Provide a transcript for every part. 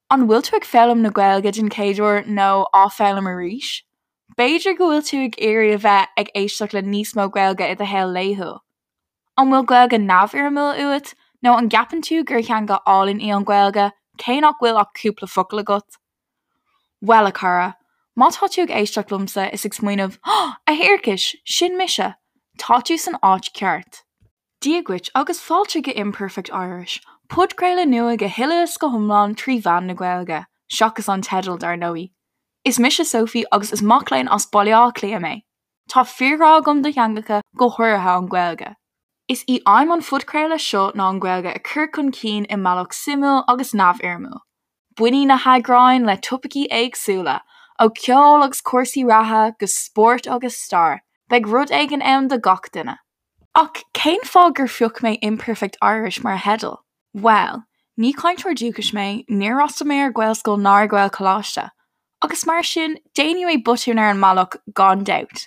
An bhfuil tú ag foghlaim na Gaeilge den chéad uair nó á foghlaim arís? B'fhéidir go bhfuil tú ag iarraidh a bheith ag éisteacht le níos mó Gaeilge i do shaol laethúil. An bhfuil Gaeilge neamhfhoirmiúil uait nó an gceapann tú gur theanga álainn í an Ghaeilge cé nach bhfuil ach cúpla focal agat? Bhuel, a chara, má tá tú ag éisteacht liomsa is ag smaoineamh 'A thiarcais, sin mise! tá tú san áit ceart. Dia dhuit agus fáilte go Imperfect Irish, podchraoladh nua go huile is go hiomlán trí mheán na Gaeilge, seachas an teideal, dar ndóigh. Is mise Sophie agus is mac léinn as Baile Átha Cliath mé. Tá fíorghrá agam do theangacha, go háirithe an Ghaeilge. Is í aidhm an phodchraoladh seo ná an Ghaeilge a chur chun cinn i mbealach suimiúil agus neamhfhoirmiúil. Bainfidh na heagráin le topaicí éagsúla, ó cheol agus cúrsaí reatha go spórt agus stair, beidh rud éigin ann do gach duine. Ach cén fáth gur phioc mé Imperfect Irish mar theideal? Bhuel, ní cainteoir dúchais mé, níor fhreastail mé ar Ghaelscoil ná ar Ghaelcholáiste, agus mar sin, déanfaidh mé botúin ar an mbealach gan dabht.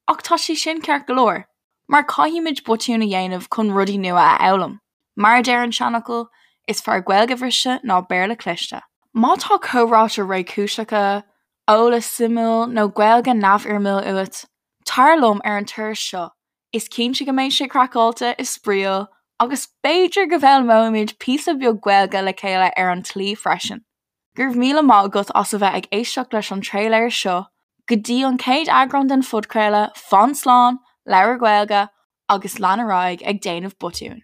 Ach tá sé sin ceart go leor, mar caithfimid botúin a dhéanamh chun rudaí nua a fhoghlaim. Mar a deir an seanfhocal, is fearr Gaeilge bhriste ná Béarla cliste. Má tá comhráite réchúiseacha, eolas suimiúil nó Gaeilge neamhfhoirmiúil uait, Tar liom ar an turas seo, is cinnte go mbeidh sé craiceáilte is spraíúil agus b'fhéidir go bhfoghlaimeoimid píosa beag Gaeilge le chéile ar an tslí freisin. Go raibh míle maith agat as a bheith ag éisteacht leis an tréiléar seo. Go dtí an chéad eagrán den phodchraoladh, fan slán, labhair Gaeilge agus lean ar aghaidh ag déanamh botúin.